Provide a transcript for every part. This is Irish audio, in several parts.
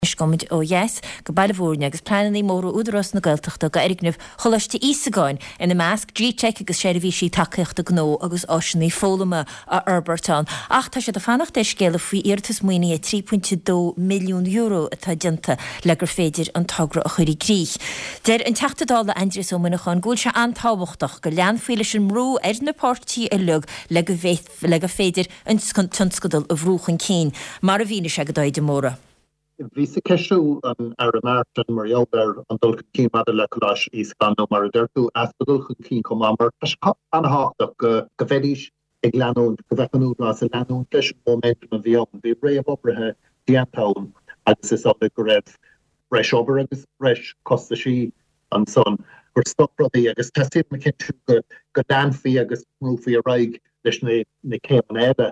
Anois gabhfaimid ó dheas go Baile Bhúirne agus pleananna móra Údarás na Gaeltachta do fhoirgneamh Choláiste Íosagáin, ina measc G-Teic agus seirbhísí tacaíochta gnó agus áiseanna foghlama a fhorbairt ann. Ach tá siad ag fanacht ar scéala faoi iarratas maoinithe €3.2 milliún atá déanta le gur féidir an togra a chur i gcrích. Deir an Teachta Dála Aindrias Ó Muineacháin go bhfuil sé an-tábhachtach go leanfaí leis an mbrú ar na páirtithe uilig le go le gur féidir an tionscadal a bhrú chun cinn, mar a mhínigh sé do Dáithí de Mórdha. Bhíos ag ceistiú an Aire Martin mar gheall ar an dul chun cinn maidir le Coláiste Íosagáin nó mar a deir tú, easpa dul chun cinn chomh maith, mar tá sé an-thábhachtach go go mbeidís ag leanúint, go mbeadh an Údarás ag leanúint leis an momentum a bhí ann. Bhí réamhoibrithe déanta ann agus is amhlaidh go raibh breis obair agus breis costaisí ansan gur stop rudaí agus teastaíonn a chinntiú go go leanfaí agus go mbrúfaí ar aghaidh leis na na céimeanna eile.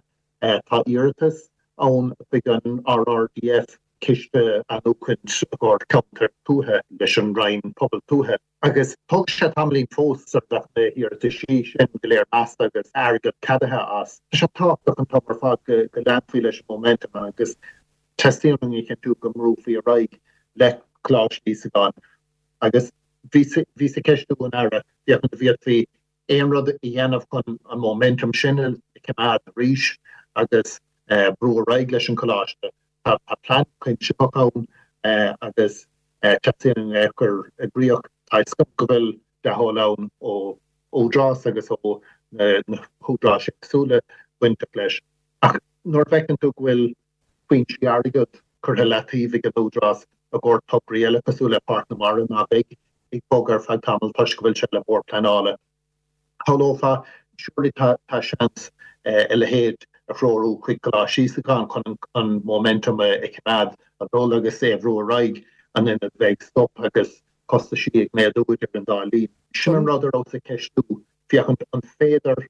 Tá iarratas ann chuig an RRDF, Ciste Athnuachaint i gcomhair Ceantair Tuaithe, leis an Roinn Pobal Tuaithe, agus tógfaidh sé tamaillín fós sar a bheadh na hiarrataisí sin go léir measta agus airgead ceadaithe as. Tá sé tábhachtach an t-am ar fad go leanfaí leis an momentum agus teastaíonn uainn a chinntiú go mbrúfaí ar aghaidh le Coláiste Íosagáin agus bhíos ag ceistiú an Aire féachaint an bhféadfaí aon rud a dhéanamh chun an momentum sin a choimeád arís agus brú ar aghaidh leis an choláiste. Tá plean cuimsitheach ann agus teastaíonn é a chur i gcrích. Tá fhios agam go bhfuil dea-thoil ann ó Údarás agus ó na húdaráis éagsúla bainteach leis. Ach nuair a bhfeiceann tú go bhfuil foinsí airgead curtha i leataobh ag an Údarás i gcomhair tograí eile cosúil le Páirc na Mara ná beidh ag bogadh ar feadh tamaill toisc go bhfuil sé le Bord Pleanála. Shamhlófá, surely tá seans a leithéid a threorú chuig Coláiste Íosagáin chun an momentum a choimeád ag dul agus é a bhrú ar aghaidh in ionad bheith ag stop agus costaisí ag méadú idir an dá linn. Sin an rud a rabhas ag ceistiú, féachaint an féidir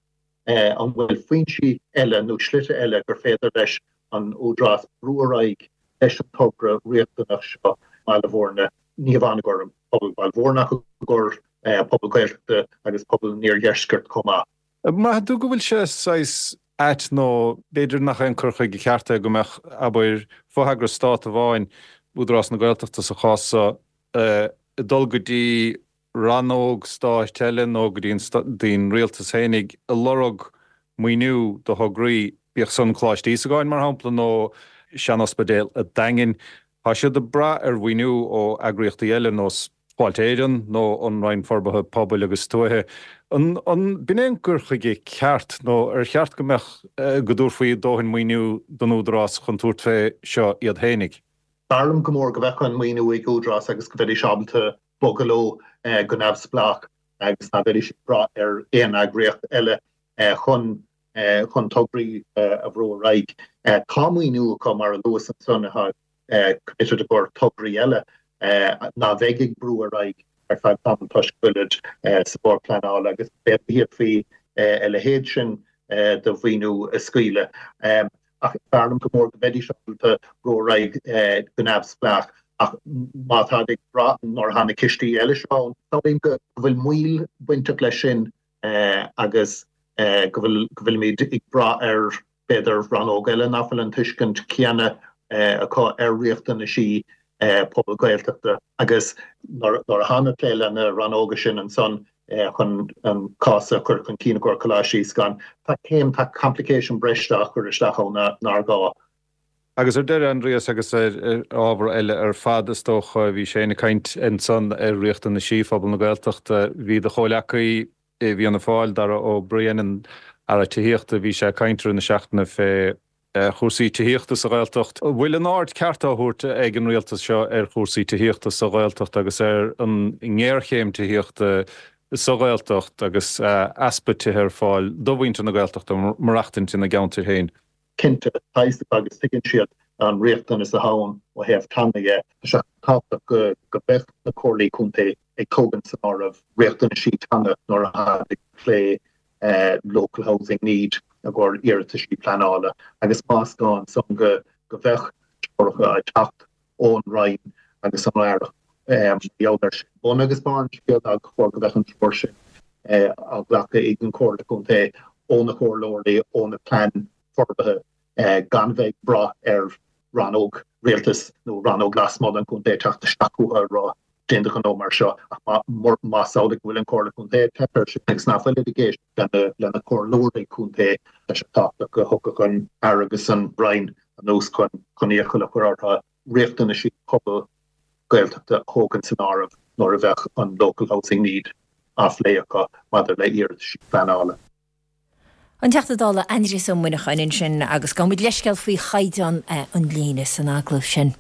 An bhfuil foinsí eile nó slite eile gur féidir leis an Údarás brú ar aghaidh leis an togra riachtanach seo i mBaile Bhúirne, ní hamháin i gcomhair pobal Bhaile Bhúirne ach i gcomhair pobal Gaeltachta agus pobal an iardheiscirt chomh maith? An mbraitheann tú go bhfuil sé saghas ait nó b'fhéidir nach é an cur chuige ceart é go mbeadh, abair, fotheagras stát amháin, Údarás na Gaeltachta sa chás seo, ag dul go dtí rannóg stáit eile nó go dtí an rialtas fhéinig ag lorg maoiniú do thograí, bíodh san Coláiste Íosagáin, mar shampla, nó sean-ospidéal an Daingin. Tá siad ag brath ar mhaoiniú ó eagraíochtaí eile, nós Fáilte Éireann nó an Roinn Forbartha Pobail agus Tuaithe. An b'in é an cur chuige ceart nó ar cheart go mbeadh, go dtabharfaí dóthain maoiniú don Údarás chun tabhairt fé seo iad fhéinig? B'fhearr liom go mór go mbeadh an maoiniú ag Údarás agus go mbeidís ábalta bogadh leo go neamhspleách agus ná beidís ag brath ar aon eagraíocht eile chun chun tograí a bhrú ar aghaidh. Tá maoiniú acu, mar a luas ansan, atá committed i gcomhair tograí eile ná bheidh ag brú ar aghaidh ar feadh tamaill toisc go bhfuilid sa Bhord Pleanála agus b'fhéidir go bhféadfaí a leithéid sin de mhaoiniú a scaoileadh. Ach b'fhearr liom go mór go mbeidís ábalta brú ar aghaidh go neamhspleách. Ach má táid ag brath nuair atá na cistí eile seo ann, samhlaím go bhfuil moill bainteach leis sin agus go bhfuil, go bhfuilimid ag brath ar b'fhéidir rannóg eile nach bhfuil an tuiscint chéanna acu ar riachtanaisí pobal Gaeltachta. Agus nuair a tháim ag plé le na rannóga sin ansan chun an cás a chur chun cinn i gcomhair Coláiste Íosagáin, tá céim, tá complication breise á chur isteach ann nár ghá. Agus ar deireadh, Aindrias, agus ar ábhar eile ar fad is dócha, bhí Shane ag caint ansan ar riachtanaisí phobal na Gaeltachta. Bhí do chomhleacaí i bhFianna Fáil, Darragh O'Brien, an Aire Tithíochta, bhí sé ag caint i rith na seachtaine fé chúrsaí tithíochta sa Ghaeltacht. An bhfuil an aird ceart á thabhairt ag an rialtas seo ar chúrsaí tithíochta sa Ghaeltacht agus ar an ngéarchéim tithíochta sa Ghaeltacht agus easpa tithe ar fáil do mhuintir na Gaeltachta maireachtaint ina gceantair féin? Cinnte, tá fhios acu agus tuigeann siad an riachtanas atá ann ó thaobh teanga dhe. Tá sé tábhachtach go mbeadh na comhairlí contae ag tógaint san áireamh riachtanaisí teanga nuair atá ag plé local housing need i gcomhair iarrataisí pleanála agus más gá ansan go mbeadh treoracha ag teacht ón Roinn agus an Aireacht mar gheall air sin. Bun agus barr an scéil ná gur chóir go mbeadh an treoir sin á glacadh ag an Chomhairle Contae ó na comhairleoirí, ó na plean forbartha gan bheith ag brath ar. rannóg rialtais nó rannóg lasmuigh den chontae ag teacht isteach chucu ag rá déan do ghnó mar seo ach más amhlaidh go bhfuil an Chomhairle Contae ag teip air sin agus nach bhfuilid ag éisteacht lena comhairleoirí contae tá sé tábhachtach go dtiocfadh an Aire agus an Roinn anuas chun iachall a chur orthu riachtanaisí pobal Gaeltachta a thógaint san áireamh nuair a bheadh an Local Housing Need á phlé acu maidir le hiarrataisí pleanála. An Teachta Dála Aindrias Ó Muineacháin ansin agus gabhaimid leithscéal faoi chaighdeán an líne san agallamh sin.